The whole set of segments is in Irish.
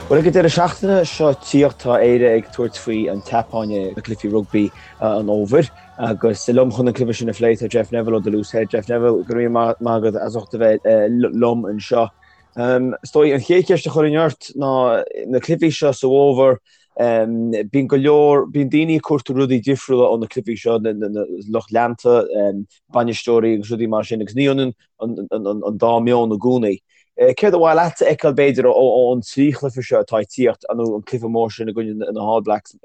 Bhuel, ag an deireadh seachtaine seo ag tíocht, tá Éire ag tabhairt faoi an tSeapáin i gcluichí rugbaí an fhómhair agus liom chun an cluiche sin a phlé tá Jeff Neville ó The Loose Head. Jeff Neville, go raibh míle maith agat as ucht a bheith liom anseo. Is dóigh an chéad cheist a chuirfinn ort ná na cluichí seo sa bhfómhar, bíonn go leor, bíonn daoine ag cuartú rudaí difriúla ó na cluichí seo, na lucht leanta, bainisteoirí agus rudaí mar sin agus ní ionann an dá meon i gcónaí. Céard ba mhaith leat a fheiceáil b'fhéidir ón trí chluiche seo atá ag tíocht, nó an cluiche mór sin i gcoinne na hAll Blacks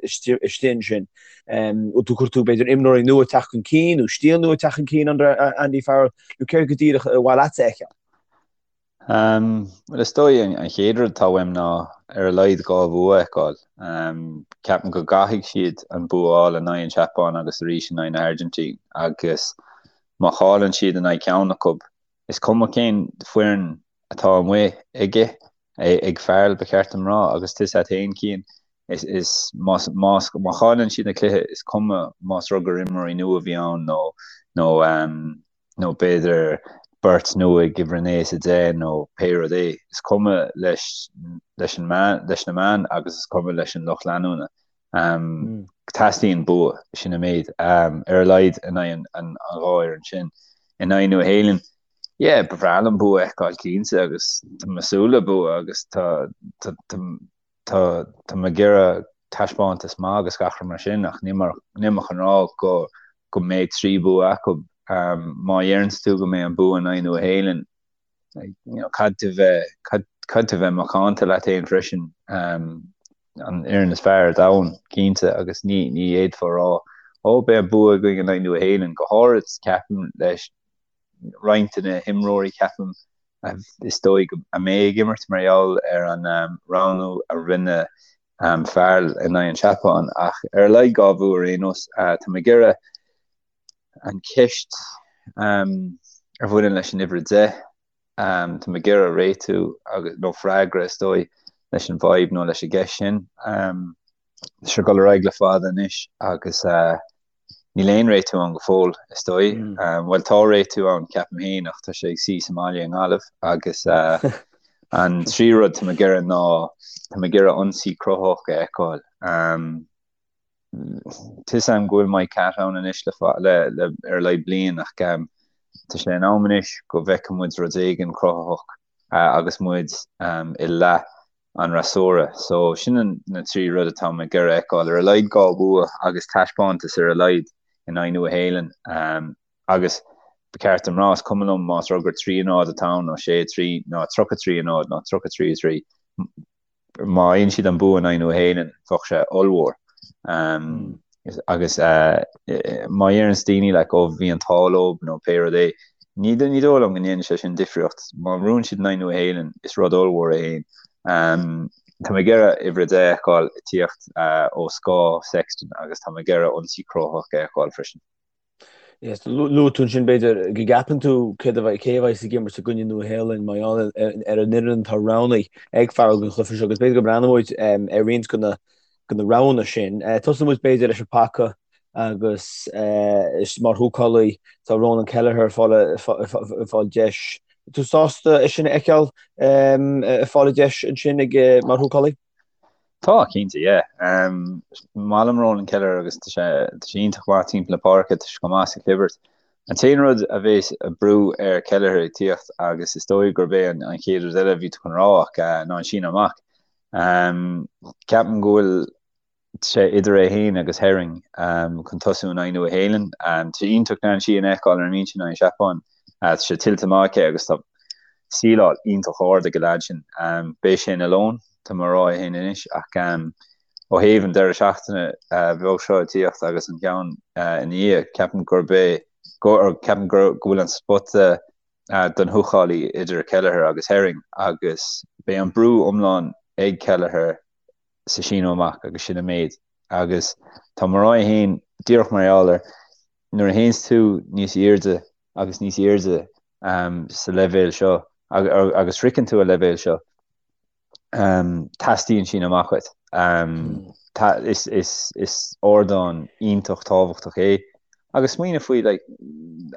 istigh ansin? Bhfuil tú ag cuartú b'fhéidir imreoirí nua ag teacht chun cinn nó stíl nua ag teacht chun cinn under Andy Farrell nó céard go díreach ba mhaith leat a fheiceáil? Bhuel is dóigh an chéad rud atá uaim ná ar a laghad dhá bhua a fheiceáil. Ceapaim go gcaithfidh siad an bua a fháil in aghaidh an tSeapáin agus arís in aghaidh na hAirgintín agus má chailleann siad in aghaidh ceann acu, Is cuma cén foireann atá amuigh aige, ag Farrell ba cheart dom rá, agus tusa féin Cian, is, is, más, más, má chailleann siad na cluiche, is cuma más rud gur imreoirí nua a bhí ann nó, nó, nó b'fhéidir beirt nua ag uimhir 9 is 10 nó pé rud é, is cuma leis, leis an meán, leis na meáin agus is cuma leis an lucht leanúna. Teastaíonn bua, sin an méid, ar a laghad in aghaidh an dhá fhoireann sin. In aghaidh Nua Shéalainn, yeah, ba bhreá liom bua a fheiceáil cinnte agus tá mé ag súil le bua agus tá tá tá tá mé ag iarraidh taispeántas maith agus gach rud mar sin ach níl mé níl mé chun rá go go mbeidh trí bua acu. Má dheireanns tú go mbeidh an bua in aghaidh Nua Shéalainn, caithfidh tú bheith, caithfidh tú bheith macánta leat féin freisin, an fhoireann is fearr ar domhan, cinnte, agus ní, ní fhéadfá a rá, ó, beidh an bua againn in aghaidh Nua Shéalainn, go háirid, ceapaim, leis roinnt de na himreoirí, ceapaim, is dóigh go a mbeidh ag imirt mar gheall ar an roghnú a rinne Farrell in aghaidh an tSeapáin, ach ar a laghad dhá bhua ar aon nós, tá mé ag iarraidh an cheist a bhaineann leis an uimhir 10, tá mé ag iarraidh réitiú agus, nó freagra is dóigh, leis an bhfadhb nó leis an gceist sin. Tá sé ag dul ar aghaidh le fada anois agus níl aon réitiú ann go fóill, is dóigh. Bhuel, tá réitiú ann, ceapaim féin, ach tá sé ag suí sa mbaile i nGaillimh agus an tríú rud tá mé ag iarraidh ná tá mé ag iarraidh ionsaí cruthaitheach a fheiceáil. Tá 'fhios a'm go bhfuil Mike Catt ann anois le le le ar a laghad bliain ach tá sé in am anois go bhfeicfidh muid rud éigin cruthaitheach agus muid i leath an fhreasúra. So sin an na trí rud atá mé ag iarraidh a fheiceáil, ar a laghad dhá bhua agus taispeántas ar a laghad in aghaidh Nua Shéalainn agus ba cheart dom rá is cuma liom más rud gur 3-0 atá ann nó 6-3 nó 33-0 nó 33-3. má fhaigheann siad an bua in aghaidh Nua Shéalainn, bheadh sé ollmhór. Agus má dheireanns daoine like ó bhí an t-ádh leo nó pé rud é, ní ní dóigh liom go ndéanann sé sin difríocht. Má bhuann siad in aghaidh Nua Shéalainn, is rud ollmhór é féin. Tá mé ag iarraidh uimhir a 10 a fheiceáil ag tíocht ó scáth Sexton agus tá mé ag iarraidh ionsaí cruthaitheach a fheiceáil freisin. Yes, luaigh tú ansin b'fhéidir go gceapann tú céard a bheidh, cé a bheidh ag imirt i gcoinne Nua Shéalainn mar gheall ar an fhoireann atá roghnaithe ag Farrell don chluiche seo agus b'fhéidir go mbreathnóidh muid ar roinnt de na de na roghanna sin. Tosóidh muid b'fhéidir leis an paca agus mar húcálaí tá Ronan Kelleher ag fáil ag fáil deis. Tú sásta é sin a fheiceáil ag fáil deis ansin ag mar húcálaí? Tá, cinnte, yeah. Is maith liom Ronan Kelleher agus tá sé tá sé iontach maith timpeall na páirce, tá sé chomh maith sa chlibirt. An t-aon rud a bheas ag brú ar Kelleher ag tíocht agus is dóigh gurb é an an chéad rud eile a bhí tú chun rá ach ná an síneadh amach. Ceapaim go bhfuil sé idir é féin agus Herring chun tosú in aghaidh Nua Shéalainn. Tá sé iontach Dan Sheehan a fheiceáil ar an mbinse in aghaidh an Seapáin. Tá sé tuillte maith aici agus tá síleáil iontach ard ag an leaid sin. Beidh sé ina lón, tá mé a rá é féin anois, ach ó thaobh an deireadh seachtaine bheag seo ag tíocht agus an ceann ina dhiaidh, ceapaim gurb é, ceapaim go bhfuil an spota don húcálaí idir Kelleher agus Herring agus beidh an brú iomlán ag Kelleher sa síneadh amach agus sin an méid. Agus tá mé a rá é féin díreach mar gheall ar nuair a théanns tú níos airde agus níos airde sa leibhéal seo agus sroicheann tú an leibhéal seo, teastaíonn síneadh amach uait. Is ardán iontach tábhachtach é agus smaoineamh faoi like,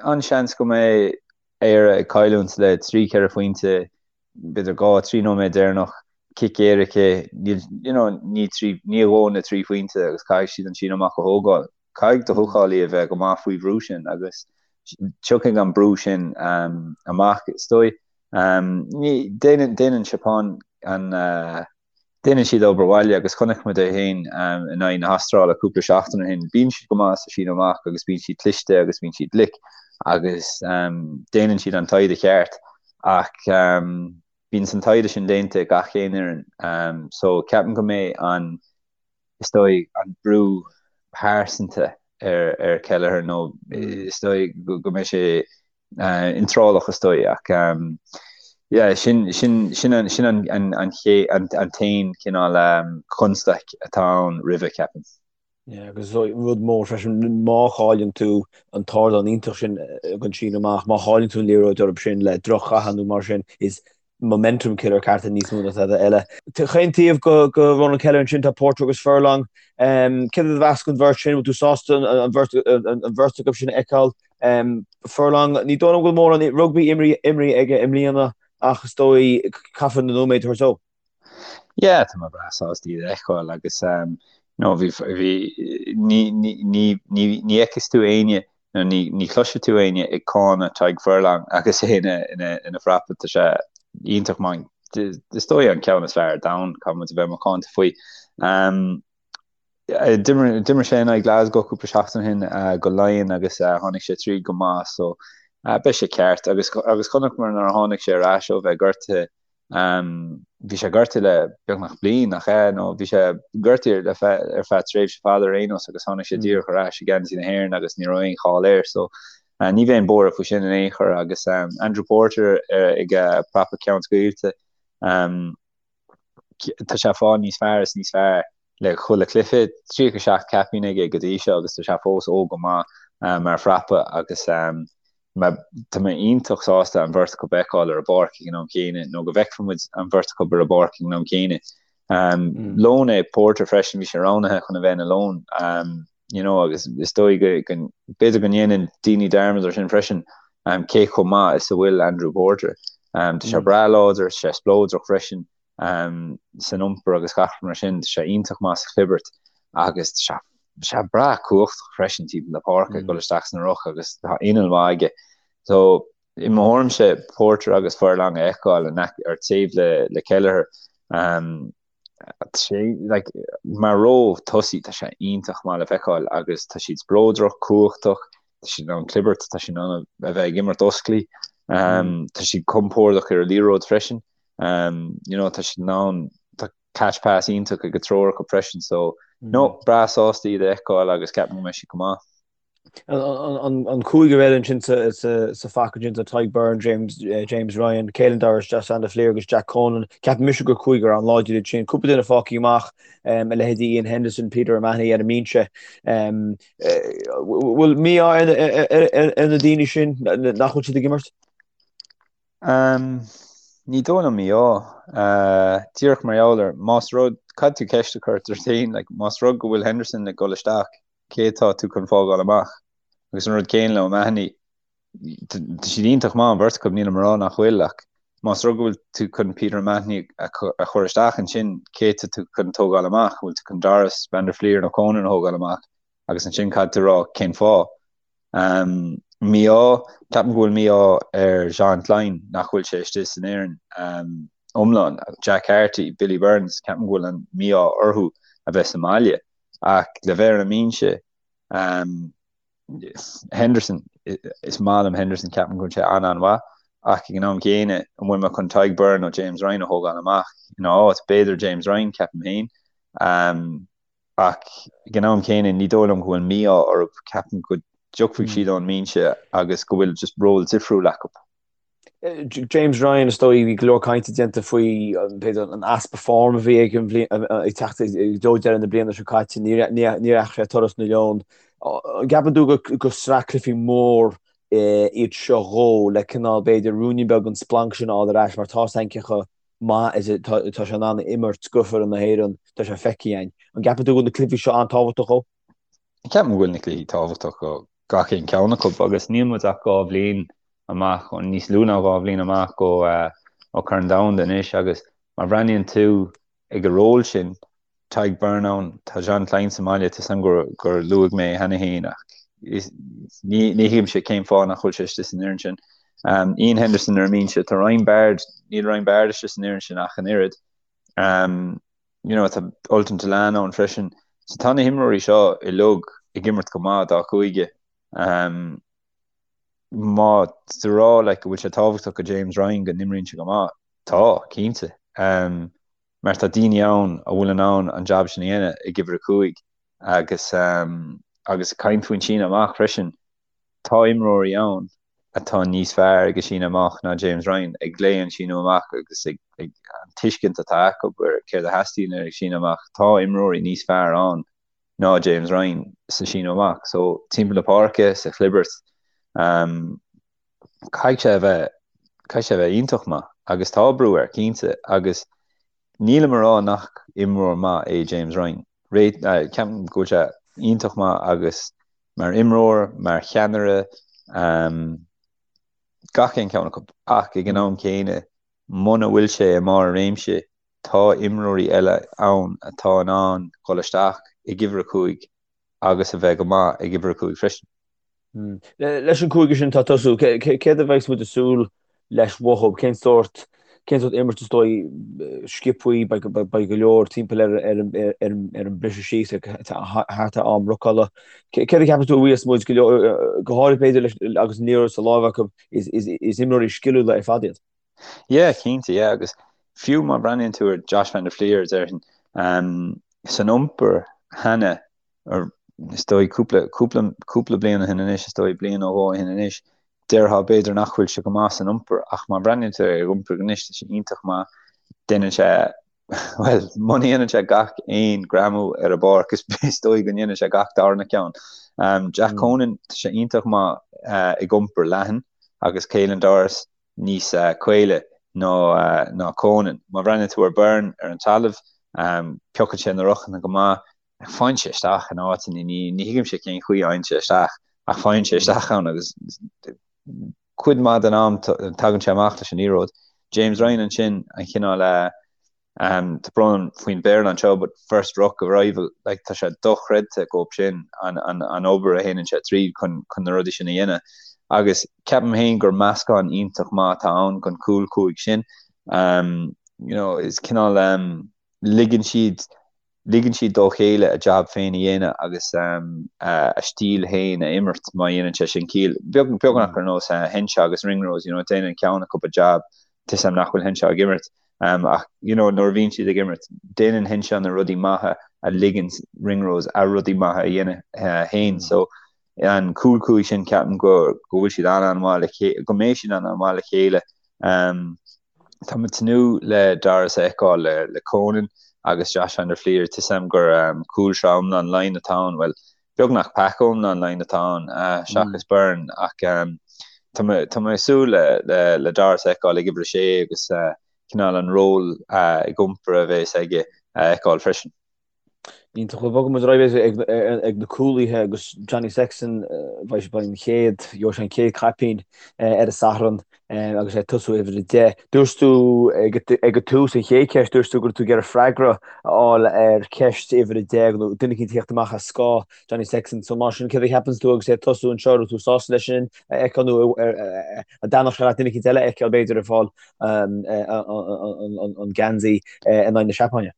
an-seans go mbeidh Éire ag cailliúint le 3, 4 phointe, b'fhéidir 2, 3 nóiméad deireanach. Cic éirice, níl, you know, ní trí, ní a dhóthain na 3 phointe agus caithfidh siad an síneadh amach a thógáil. Caithfidh do húcálaí a bheith go maith faoi bhrú sin agus tiocfaidh an brú sin amach, is dóigh. Ní, déanann, déanann Seapáin an, déanann siad obair bhaile agus chonaic muid é féin in aghaidh na hAstráile cúpla seachtain ó shin. Bíonn siad go maith sa síneadh amach agus bíonn siad cliste agus bíonn siad glic agus déanann siad an taighde cheart ach bíonn an taighde sin déanta ag gach aon fhoireann so ceapaim go mbeidh an, is dóigh, an brú pearsanta ar ar Kelleher nó is dóigh go mbeidh sé iotrálach is dóigh ach yeah sin sin sin an sin an an an an an t-aon cineál constaic atá ann roimhe ceapaim. Yeah, agus rud mór freisin, má chailleann tú an t-ardán iontach sin don síneadh amach, má chailleann tú an liathróid orthu sin le droch-chaitheamh nó mar sin, is momentum killer ceart níos mó ná tada eile. Chaon taobh go Ronan Kelleher ansin tá Porter agus Furlong. Céard a mheas an bheirt sin? Bhfuil tú sásta an bheirt acu sin a fheiceáil? Furlong, ní dóigh liom go bhfuil mórán rugbaí imrithe aige i mbliana ach is dóigh caithfear na nóiméid a thabhairt dó. Yeah, tá mé breá sásta iad a fheiceáil agus you know, bhí, bhí, ní, ní, ní, ní, ní fheicfidh tú éinne nó ní, ní chloisfidh tú éinne ag cáineadh Tadhg Furlong agus é ina, ina, ina phrapa, tá sé iontach maith, is dóigh an ceann is fearr ar domhan, caithfidh muid a bheith macánta faoi. Um, D'imir sé in aghaidh Glasgow cúpla seachtain ó shin go Laighin agus tháinig sé tríd go maith so beidh sé ceart agus agus chonaiceamar nuair a tháinig sé ar ais ó bheith gortaithe bhí sé gortaithe le beagnach bliain nach ea nó bhí sé gortaithe le feadh ar feadh tréimhse fada ar aon nós agus tháinig sé díreach ar ais i ngeansaí na hÉireann agus ní raibh aon chall air so ní bheinn buartha faoi sin in aon chor agus Andrew Porter ag prapa ceann scaoilte tá sé ag fáil níos fearr is níos fearr le chuile chluiche. 37 caipín aige go dtí seo agus tá sé fós óg go maith mar phrapa agus tá mé iontach sásta an bheirt acu a fheiceáil ar an bpáirc ag an am chéanna nó go bhfeicfidh muid an bheirt acu ar an bpáirc ag an am chéanna. Lón é Porter freisin, bhí sé roghnaithe chun a bheith ina lón you know agus is dóigh go b'fhéidir go ndéanann daoine dearmad ar sin freisin cé chomh maith is a bhfuil Andrew Porter. Tá sé breá láidir, tá sé spleodrach freisin san iompar agus gach rud mar sin, tá sé iontach maith sa chlibirt agus tá sé breá cumhachtach freisin timpeall na páirce ag dul isteach sna roic agus tá inneall maith aige. So i mo thuairimse Porter agus Furlong a fheiceáil ar taobh le Kelleher sé like mar ró tosaí tá sé iontach maith le feiceáil agus tá siad spleodrach, cumhachtach, tá siad in ann clibirt, tá siad in ann a bheith ag imirt osclaí, tá siad compordach ar an liathróid freisin, you know tá siad in ann tá catch pass iontach ag an triúr acu freisin so no breá sásta iad a fheiceáil agus ceapaim go mbeidh siad go maith. An cúigear eile ansin sa phaca ansin tá Tadhg Beirne, James James Ryan, Caelan Doris, Josh van der Flier agus Jack Conan. Ceapaim mise gur cúigear an-láidir iad sin. Cúpla duine fágtha amach, a leithéidí Iain Henderson, Peter O'Mahony ar an mbinse. Bhfuil mí-ádh ar na daoine sin nach bhfuil siad ag imirt? Ní dóigh liom mí-ádh. Díreach mar gheall ar, más rud, caithfidh tú ceist a chur ort féin, like, más rud go bhfuil Henderson ag dul isteach, cé atá tú chun fágáil amach? Agus an rud céanna le O'Mahony, tá siad iontach maith an bheirt acu, nílim ag rá nach bhfuil, ach más rud go bhfuil tú chun Peter O'Mahony a chur isteach ansin, cé atá tú chun tógáil amach? An bhfuil tú chun Doris, Van der Flier nó Conan a thógáil amach? Agus ansin caithfidh tú rá cén fáth. Mí-ádh, ceapaim go bhfuil mí-ádh ar Jean Kleyn nach bhfuil sé istigh san fhoireann iomlán. Jack Carty, Billy Burns, ceapaim go bhfuil an mí-ádh orthu a bheith sa mbaile. Ach le bheith ar an mbinse, Henderson, is maith liom Henderson, ceapaim go bhfuil sé an-an-mhaith, ach ag an am chéanna, an bhfuil mé chun Tadhg Beirne nó James Ryan a thógáil amach ina áit? B'fhéidir James Ryan, ceapaim féin. Ach ag an am chéanna, ní dóigh liom go bhfuil mí-ádh orthu, ceapaim go dtiocfaidh siad ón mbinse agus go bhfuil just ról difriúil acu. James Ryan, is dóigh, bhí go leor cainte déanta faoi b'fhéidir an easpa form a bhí aige an bhliain ag teacht i dtreo deireadh na bliana seo caite, ní dheachaigh sé turas na Leon. An gceapann tú gur sraith cluichí mór iad seo dhó le cineál b'fhéidir ruainnín beag den splanc sin a fháil ar ais mar tá a fhios againn cé chomh maith is atá sé in ann imirt do fhoireann na hÉireann, tá sé feicthe againn. An gceapann tú go bhfuil na cluichí seo an-tábhachtach dhó? Ceapaim go bhfuil na cluichí tábhachtach do gach aon cheann acu agus níl muid ach 2 bhliain amach, níos lú ná 2 bhliain amach ó Chorn Domhanda anois agus. Má bhreathnaíonn tú ag an ról sin, Tadhg Beirne ann, tá Jean Kleyn sa mbaile, tá 'fhios a'm gur luaigh mé é cheana féin ach ní thuigimse cén fáth nach bhfuil sé istigh san fhoireann sin. Iain Henderson ar an mbinse, tá Ryan Baird, níl Ryan Baird istigh san fhoireann sin ach an oiread. You know, tá Ultan Dillane ann freisin. So tá na himreoirí seo uilig ag imirt go maith dá chúige. Má tá tú ag rá like, go bhfuil sé tábhachtach go James Ryan go n-imríonn sé go maith, tá, cinnte. Mar tá daoine ann a bhfuil in ann an jab sin a dhéanamh ag uimhir a 5 agus agus ag caint faoin síneadh amach freisin, tá imreoirí ann atá níos fearr ag an síneadh amach ná James Ryan, ag léamh an síneadh amach agus ag an tuiscint atá acu ar céard a theastaíonn ar an síneadh amach. Tá imreoirí níos fearr ann ná James Ryan sa síneadh amach. So timpeall na páirce, sa chlibirt, caithfidh sé a bheith, caithfidh sé a bheith iontach maith agus tá brú air, cinnte, agus nílim ag rá nach imreoir maith é James Ryan. Ceapaim go bhfuil sé iontach maith agus mar imreoir, mar cheannaire, gach aon cheann acu. Ach ag an am céanna, muna bhfuil sé i mbarr a réimse, tá imreoirí eile ann atá in ann dul isteach ag uimhir a 5 agus a bheith go maith ag uimhir a 5 freisin. Leis an gcúigear sin atá ag tosú, céard a bheidh muid ag súil leis uathu? Cén sórt cén sórt imirt is dóigh sciobthaí, beidh go leor timpeall ar an briseadh síos thart ar am rucála. Céard a cheapann tú a bheas muid go leor, go háirithe b'fhéidir leis agus an liathróid sa láimh acu, is imreoirí sciliúla ar fad iad? Yeah, cinnte, yeah, agus fiú má bhreathnaíonn tú ar Josh van der Flier, déarfainn, san iompar cheana, is dóigh cúpla, cúpla, cúpla bliain ó shin anois, is dóigh bliain nó dhó ó shin anois, déarfá b'fhéidir nach bhfuil sé go maith san iompar ach má bhreathnaíonn tú ar a iompar anois, tá sé iontach maith, déanann sé, bhuel, muna ndéanann sé gach aon greamú ar an bpáirc, is, is dóigh go ndéanann sé gach darna ceann. Jack Conan, tá sé iontach maith ag iompar leathan agus Caelan Doris, níos caoile ná Conan. Má bhreathnaíonn tú ar Beirne ar an talamh, piocann sé na rucanna go maith, faigheann sé isteach in áiteanna, ní thuigimse cén chaoi a fhaigheann sé isteach, ach faigheann sé isteach ann agus cuid mhaith den am tagann sé amach leis an liathróid. James Ryan ansin, an chineál Tá brón orm faoin Bhéarla anseo but first ruck arrival, like tá sé dochreidte dhób sin an an obair a théann sé tríd chun chun na rudaí sin a dhéanamh. Agus ceapaim féin gur meascán iontach maith atá ann don chúl 5 sin. You know, is cineál ligeann siad Ligeann siad dá chéile a jab féin a dhéanamh agus a stíl féin a imirt má dhéanann sé sin ciall. Beagnach ar nós Henshaw agus Ringrose, you know, déanann ceann acu a jab, tá 'fhios a'm nach bhfuil Henshaw ag imirt ach you know nuair a bhíonn siad ag imirt, déanann Henshaw na rudaí maithe a ligeann Ringrose a rudaí maithe a dhéanamh féin. So an cúl 5 sin ceapaim go go bhfuil siad an-an-mhaith le chéile, go mbeidh siad an-an-mhaith le chéile. Tá mé ag tnúth le Doris a fheiceáil le Conan agus Josh van der Flier. Tá 'fhios a'm gur cúlsraith iomlán Laighean atá ann, bhuel, beagnach pack iomlán Laighean atá ann seachas Beirne ach tá mé tá mé ag súil le le Doris a fheiceáil ag uimhir a sé agus cineál an ról ag iompar a bheas aige a fheiceáil freisin. Iontach. Bhuel, bogfaidh muid ar aghaidh ag na cúlaithe agus Johnny Sexton, beidh sé an chéad, gheobhaidh sé an chéad chaipín ar an Satharn agus é ag tosú uimhir a 10. Dúirt tú ag an tús, an chéad cheist, dúirt tú go raibh tú ag iarraidh freagra a fháil ar cheist uimhir a 10 nó duine eicínt a theacht amach as scáth Johnny Sexton. So mar sin, céard a cheapanns tú agus é ag tosú anseo, raibh tú sásta leis sin a fheiceáil nó an dtaitneodh sé leat duine eicínt eile a fheiceáil b'fhéidir ag fáil an geansaí in aghaidh na Seapáine?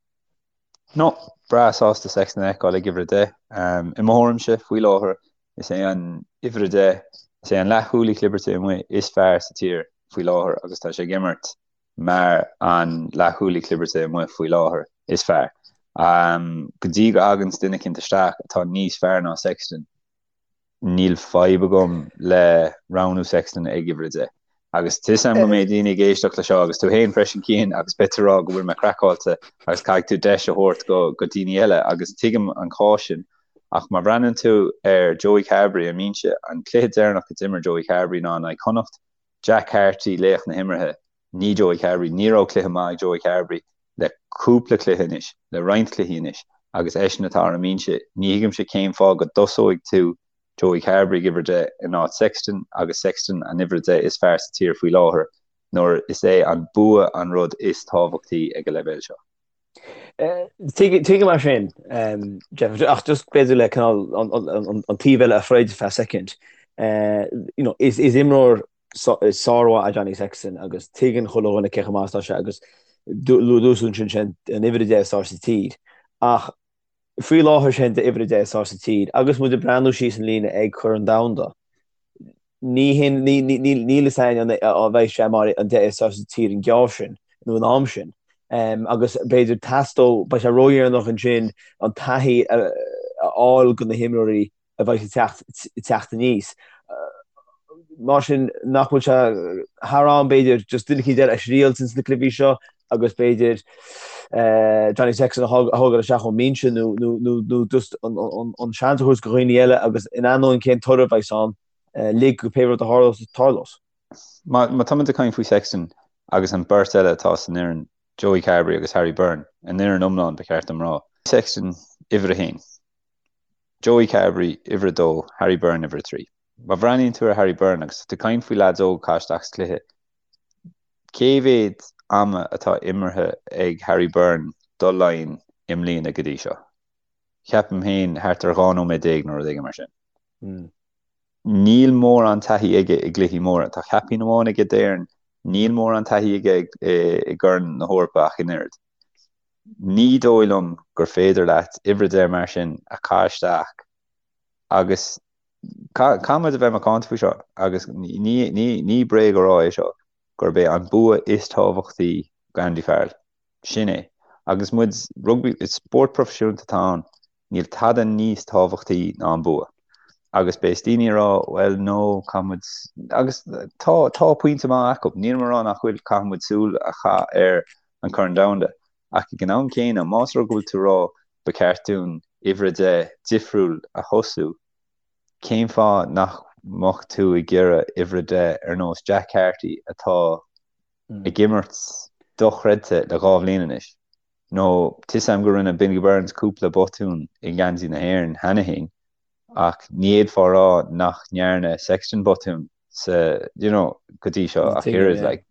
No, breá sásta Sexton a fheiceáil ag uimhir a 10. I mo thuairimse, faoi láthair, is é an uimhir a 10, is é an leathchúlaí clibirte amuigh is fearr sa tír faoi láthair agus tá sé ag imirt mar an leathchúlaí clibirte amuigh faoi láthair is fearr. Go dtí go dtaganns duine eicínt isteach atá níos fearr ná Sexton, Níl fadhb agam le roghnú Sexton ag uimhir a 10. Agus tá 'fhios a'm go mbeidh daoine ag éisteacht le seo agus tú féin freisin Cian agus beidh tú ag rá go bhfuil mé craiceáilte agus caithfidh tú deis a thabhairt go go daoine eile agus tuigim an cás sin ach má bhreathnaíonn tú ar Joey Carbery ar an mbinse, an cluiche deireanach a d'imir Joey Carbery ná in aghaidh Chonnacht, Jack Carty laoch na himeartha, ní Joey Carbery. Ní raibh cluiche maith ag Joey Carbery le cúpla cluiche anois, le roinnt cluichí anois, agus eisean atá ar an mbinse. Ní thuigimse cén fáth go dtosóidh tú Joey Carbery ag uimhir a 10 in áit Sexton agus Sexton an uimhir a 10 is fearr sa tír faoi láthair. nuair is é an bua an rud is tábhachtaí ag an leibhéal seo. Tuigim é sin, Jeff, ach just b'fhéidir le cineál an taobh eile a throid feadh soicind. You know, is imreoir sármhaith é Johnny Sexton agus tuigeann chuile dhuine cé chomh maith is atá sé agus luaigh tú ansin sin an uimhir 10 is fearr sa tír. Ach faoi láthair sin d'uimhir 10 is fearr sa tír agus muid ag breathnú síos an líne ag Corn Domhanda, ní hin, níl fhios againn an mbeidh sé mar an 10 is fearr sa tír an geábh sin nó an am sin. Agus b'fhéidir teastódh, beidh sé ródheireanach ansin an taithí a fháil go na himreoirí a bheidh ag teacht aníos. Mar sin, nach bhfuil sé thar am, b'fhéidir, just duine eicínt eile a thriailt ins na cluichí seo agus b'fhéidir Johnny Sexton a thógáil isteach ón mbinse nó just an seans a thabhairt go dhaoine eile agus in ainneoin cén toradh a bheas ann, lig go pé rud a tharlós, tarlós. Má tá muid ag caint faoi Sexton agus an beirt eile atá san fhoireann, Joey Carbery agus Harry Byrne, an fhoireann iomlán ba cheart dom rá. Sexton, uimhir a haon. Joey Carbery, uimhir a dó, Harry Byrne, uimhir a 3. Má bhreathnaíonn tú ar Harry Byrne agus tá tú ag caint faoi leaids óga a chaitheamh isteach sa chluiche, cé mhéad ama atá imeartha ag Harry Byrne do Laighin i mbliana go dtí seo? Ceapaim féin thart ar 12 nóiméad nó rud éigin mar sin. Níl mórán taithí aige i gcluichí móra. Tá caipín amháin aige d'Éirinn, níl mórán taithí aige i gCorn na hEorpa ach an oiread. Ní dóigh liom gur féidir leat uimhir 10 mar sin a chaitheamh isteach agus caithfidh muid a bheith macánta faoi seo agus ní bréag a rá é seo gurb é an bua is tábhachtaí go Andy Farrell. Sin é. Agus muid, rugbaí, is spórt proifisiúnta atá ann, níl tada níos tábhachtaí ná an bua. Agus beidh daoine ag rá, well no, caithfidh muid, agus tá, tá pointe maith acu, nílim ag rá nach bhfuil, caithfidh muid súil a chaitheamh ar an Corn Domhanda. Ach ag an am céanna, más rud go bhfuil tú ag rá ba cheart dúinn uimhir 10 difriúil a thosú, cén fáth nach mbeadh tú ag iarraidh uimhir 10 ar nós Jack Carty atá ag imirt dochreidte le 2 bhliain anois? Nó tá 'fhios a'm go rinne Billy Burns cúpla botún i ngeansaí na hÉireann cheana féin, ach ní fhéadfá a rá nach ndearna Sexton botún sa, you know, go dtí seo ach oiread, like.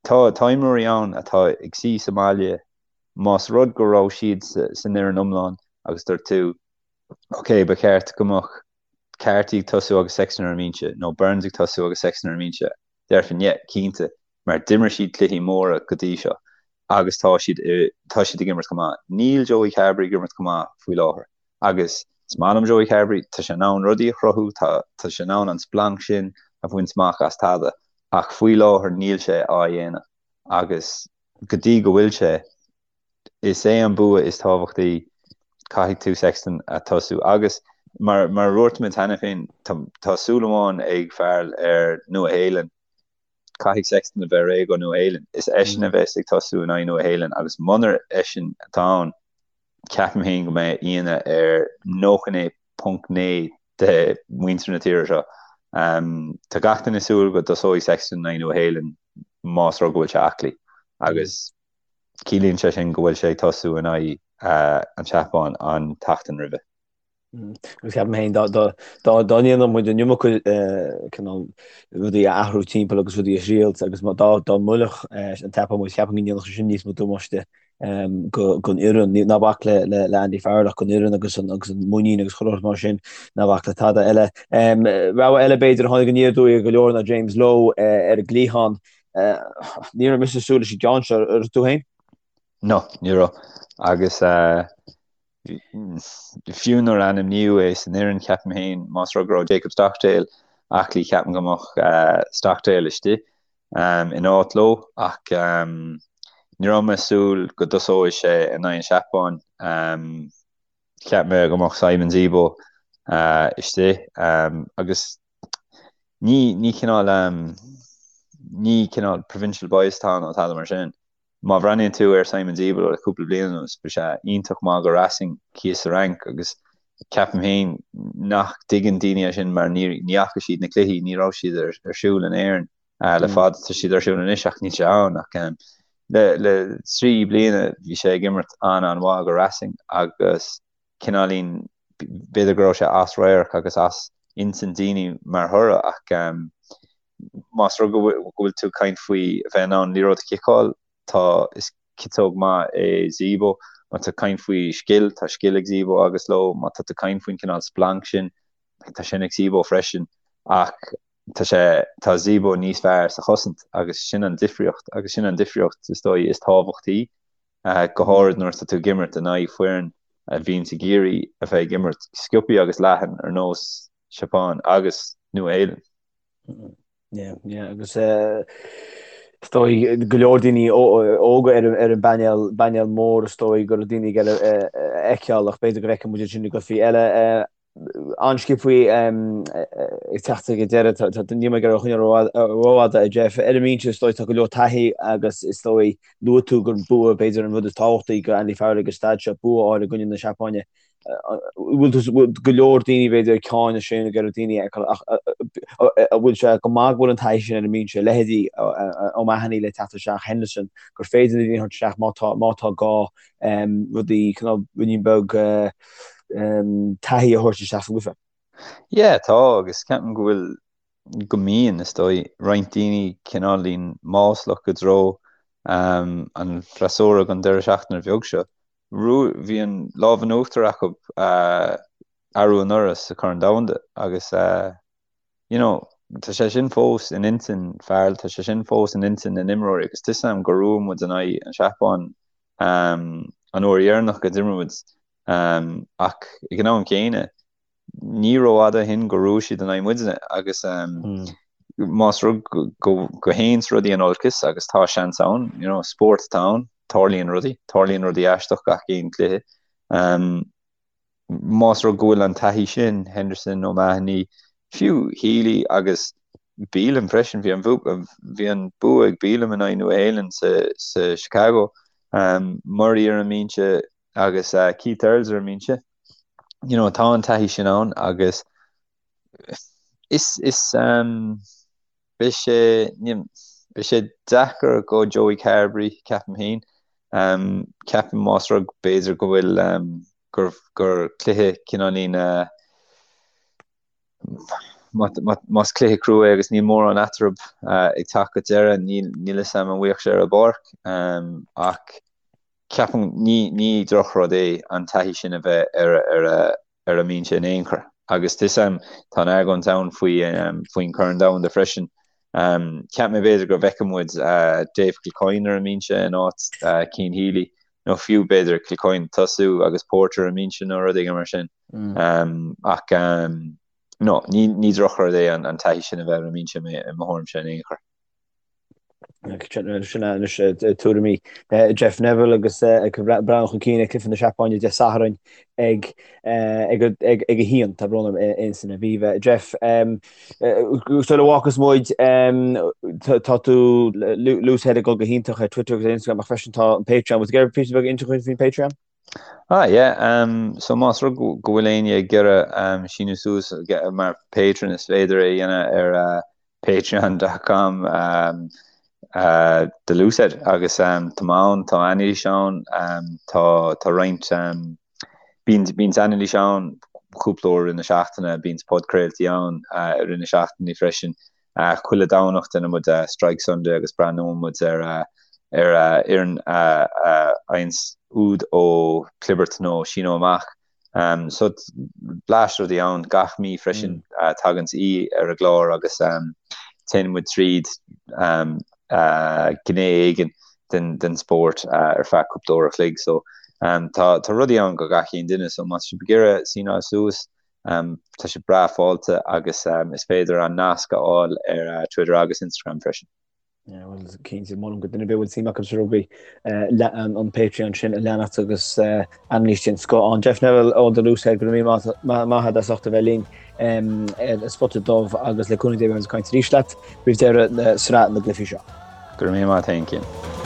Tá, tá imreoirí ann atá ag suí sa mbaile, más rud go raibh siad san fhoireann iomlán agus dúirt tú, ok, ba cheart go mbeadh Carty ag tosú agus Sexton ar an mbinse, nó Burns ag tosú agus Sexton ar an mbinse, déarfainn yeah, cinnte, mar d'imir siad cluichí móra go dtí seo agus tá siad tá siad ag imirt go maith. Níl Joey Carbery ag imirt go maith faoi láthair agus is maith liom Joey Carbery, tá sé in ann rudaí a chruthú, tá tá sé in ann an splanc sin a bhaint amach as tada ach faoi láthair níl sé á dhéanamh agus go dtí go bhfuil sé, is é an bua is tábhachtaí, caithfidh tú Sexton a tosú agus mar mar a dúirt muid cheana féin, tá tá súil amháin ag Farrell ar Nua Shéalainn, caithfidh Sexton a bheith réidh go Nua Shéalainn. Is eisean a bheas ag tosú in aghaidh Nua Shéalainn agus munar eisean atá ann, ceapaim féin go mbeidh ionadh ar 99.9 de mhuintir na tíre seo. Tá gach duine ag súil go dtosóidh Sexton in aghaidh Nua Shéalainn más rud go bhfuil sé aclaí agus ciallaíonn sé sin go bhfuil sé ag tosú in aghaidh an tSeapáin an tseachtain roimhe. Agus ceapaim féin dá ndéanfadh muid an iomarca cineál rudaí a athrú timpeall agus rudaí a thriailt agus dá dá mbuailfeadh an tSeapáin muid, ceapaim go ndéanfadh sé sin níos mó damáiste don fhoireann. Ná bac le le Andy Farrell ach don fhoireann agus an agus an muinín agus chuile shórt mar sin, ná bac le tada eile. Rogha eile b'fhéidir a tháinig aniar aduaidh ar go leor ná James Lowe ar an gcliathán. Ní raibh mise ag súil leis an gceann seo, an raibh tú féin? No, ní raibh. Agus fiú nuair a ainmníodh é san fhoireann, ceapaim féin, más rud go raibh Jacob Stockdale aclaí, ceapaim go mbeadh Stockdale istigh in áit Lowe ach ní raibh mé ag súil go dtosóidh sé in aghaidh an Seapáin. Cheap mé go mbeadh Simon Zebo istigh agus ní ní cineál ní cineál provincial bias atá ann nó tada mar sin. Má bhreathnaíonn tú ar Simon Zebo le cúpla bliain anuas, bhí sé iontach maith go Racing thíos sa Fhrainc agus ceapaim féin nach dtuigeann daoine é sin mar ní ní fhaca siad na cluichí, ní raibh siad ar ar siúl in Éirinn le fada, tá siad ar siúl anois ach níl sé ann ach le le 3 bliana bhí sé ag imirt an-an-mhaith go Racing agus cineáilín b'fhéidir go raibh sé as radharc agus as intinn daoine mar thoradh ach. Más rud go bhfuil tú ag caint faoi a bheith in ann liathróid a chiceáil, tá, is ciotóg maith é Zebo. Má tá tú ag caint faoi scil, tá scil ag Zebo agus Lowe. Má tá tú ag caint faoin cineál splanc sin, tá sin ag Zebo freisin. Ach tá sé, tá Zebo níos fearr sa chosaint agus sin an difríocht agus sin an difríocht is dóigh is tábhachtaí, go háirid nuair atá tú ag imirt in aghaidh foireann a bhíonns ag iarraidh a bheith ag imirt sciobthaí agus leathan ar nós Seapáin agus Nua-Shéalainn. Yeah, yeah, agus is dóigh go leor daoine óga ar an bpainéal, bpainéal mór is dóigh go raibh daoine ag iarraidh a fheiceáil ach b'fhéidir go bhfeicfidh muid sin i gcluichí eile. An-sciobthaí ag teacht ag an deireadh, níl mé ag iarraidh a choinneáil rófhada a Jeff. Ar an mbinse is dóigh tá go leor taithí agus is dóigh luaigh tú gur bua b'fhéidir an rud is tábhachtaí do Andy Farrell ag an staid seo, bua a fháil i gcoinne na Seapáine. Bhfuil go leor daoine b'fhéidir ag cáineadh sin ag iarraidh daoine a fheiceáil ach an bhfuil sé go maith go bhfuil an taithí sin ar an mbinse, leithéidí O'Mahony le teacht isteach, Henderson, gur féidir na daoine a thabhairt isteach má tá má tá gá rudaí cineál ruainnín beag taithí a thabhairt isteach sa gcluiche. Yeah, tá agus ceapaim go bhfuil go mbíonn, is dóigh, roinnt daoine cineáilín maslach i dtreo an freasúra don deireadh seachtaine bheag seo. Bhí an lámh in uachtar acu arú anuraidh sa Chorn Domhanda agus you know tá sé sin fós in intinn Farrell, tá sé sin fós in intinn na n-imreoirí agus tá 'fhios a'm gur bhuaigh muid in aghaidh an Seapáin an uair dheireanach go d'imir muid ach ag an am céanna ní rófhada ó shin gur bhuaigh siad in aghaidh muidne agus más rud go dtéanns rudaí in olcas agus tá seans ann, you know, spórt atá ann, tarlaíonn rudaí, tarlaíonn rudaí aisteach gach aon cluiche. Más rud go bhfuil an taithí sin, Henderson, O'Mahony, fiú Healy agus Bealham freisin, bhí an bhí an bua ag Bealham in aghaidh Nua Shéalainn sa sa Chicago, Murray ar an mbinse agus Keith Earls ar an mbinse. You know, tá an taithí sin ann agus is is um, beidh sé beidh sé deacair go Joey Carbery ceapaim féin. Um, ceapaim más rud b'fhéidir go bhfuil um, gur, gur cluiche cineáilín uh, más cluiche crua é agus níl mórán eatarthu uh, ag teacht go deireadh, níl níl 'fhios a'm an mbeadh sé ar an bpáirc um, ach Ceapaim, ní, ní drochrud é an taithí sin a bheith ar, ar a, ar an mbinse in aon chor. Agus tá 'fhios a'm, tá an argóint ann faoi, faoin Chorn Domhanda freisin. Cheap mé b'fhéidir go bhfeicfeadh muid Dave Kilcoyne ar an mbinse in áit Cian Healy, nó fiú b'fhéidir Kilcoyne ag tosú agus Porter ar an mbinse nó rud éigin mar sin. Ach no, ní, ní drochrud é an, an taithí sin a bheith ar an mbinse i mo thuairimse in aon chor. Sin anois tuairimí Jeff Neville agus ag breathnú chun cinn ag cluiche na Seapáine Dé Sathairn ag ag a haon tá brón orm in san Aviva. Jeff sula bhfágfas muid tá tú Loosehead ag dul go hiontach ar Twitter agus ar Instagram ach freisin tá an Patreon. Bhfuil tú ag iarraidh píosa beag a inse faoin Patreon? Ah yeah, um, so más rud go bhfuil éinne ag iarraidh um, síniú suas mar patron is féidir é a dhéanamh ar uh, Patreon dot com um, uh, The Loosehead agus um, tá mé ann, tá anailís ann, um, tá, tá roinnt um, bíonn, bíonn anailís ann cúpla uair i rith na seachtaine, bíonn podchraoltaí ann uh, i rith na seachtaine freisin. Uh, chuile Domhnach déanann muid uh, Strike Sunday agus breathnóidh muid ar uh, ar uh, fhoireann uh, uh, faigheanns úd ó chlibirt nó síneadh amach. So bleaist rudaí ann gach mí freisin tagann aoi ar an gclár agus téann muid tríd gné éigin den spórt ar feadh cúpla uair a chloig. So tá tá rudaí ann go gach aon duine so má tá sibh ag iarraidh síneáil suas tá sé breá fáilte agus is féidir an nasc a fháil ar Twitter agus Instagram freisin. Bhuel, cinnte, molaim go duine ar bith a bhfuil suim acu sa rugbaí an Patreon sin a leanacht agus anailís den scoth ann. Jeff Neville ó The Loosehead, go raibh míle maith agat as ucht a bheith linn ar An Spota Dubh agus le cúnamh Dé beidh muid ag caint arís leat roimh deireadh na sraith na gcluichí seo. Go raibh míle maith agat féin, Cian.